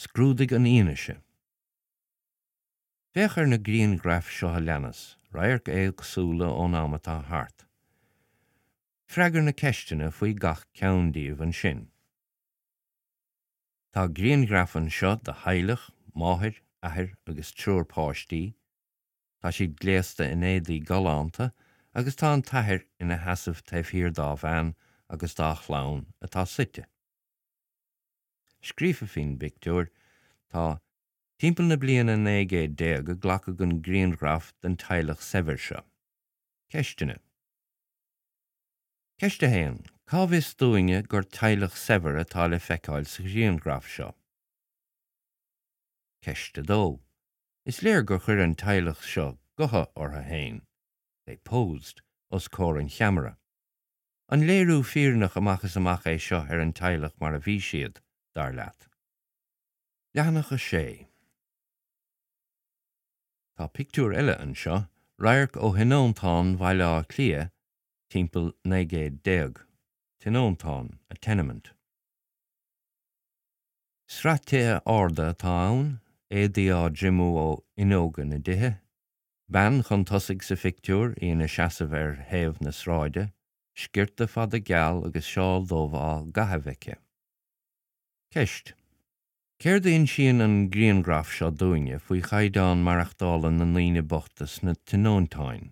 Scrúdaigh an fhianaise. Féach ar na grianghraif seo a leanas, radhairc éagsúla ón am atá thart. Freagair na ceisteanna faoi gach ceann díobh ansin. Tá grianghraf anseo de theaghlach, máthair, athair agus triúr páistí. Tá siad gléasta in éadaí galánta agus tá an t-athair ina sheasamh taobh thiar dá bhean agus dá chlann atá suite. Scríofa faoin bpictiúr tá, Timpeall na bliana 1900 a glacadh an grianghraf den teaghlach saibhir seo. Ceisteanna. Ceist 1, Cá bhfios dúinne gur teaghlach saibhir atá le feiceáil sa ghrianghraf seo? Ceist 2, Is léir gur chuir an teaghlach seo gotha orthu féin, they posed, os comhair an cheamara. An léiriú fírinneach amach is amach é seo ar an teaghlach mar a bhí siad, dar leat? Leathanach 6. Tá pictiúr eile anseo, radharc ó thionóntán Bhaile Átha Cliath timpeall 19 céad. Tionóntán, a tenement. Sraith tithe arda atá ann, éadaí á dtriomú ó fhuinneoga na dtithe. Bean chun tosaigh sa phictiúr, í ina seasamh ar thaobh na sráide, sciorta fada geal agus seál dubh á gcaitheamh aici. Ceist, Céard a insíonn an grianghraf seo dúinne faoi chaighdeán maireachtála na ndaoine bochta sna tionóntáin?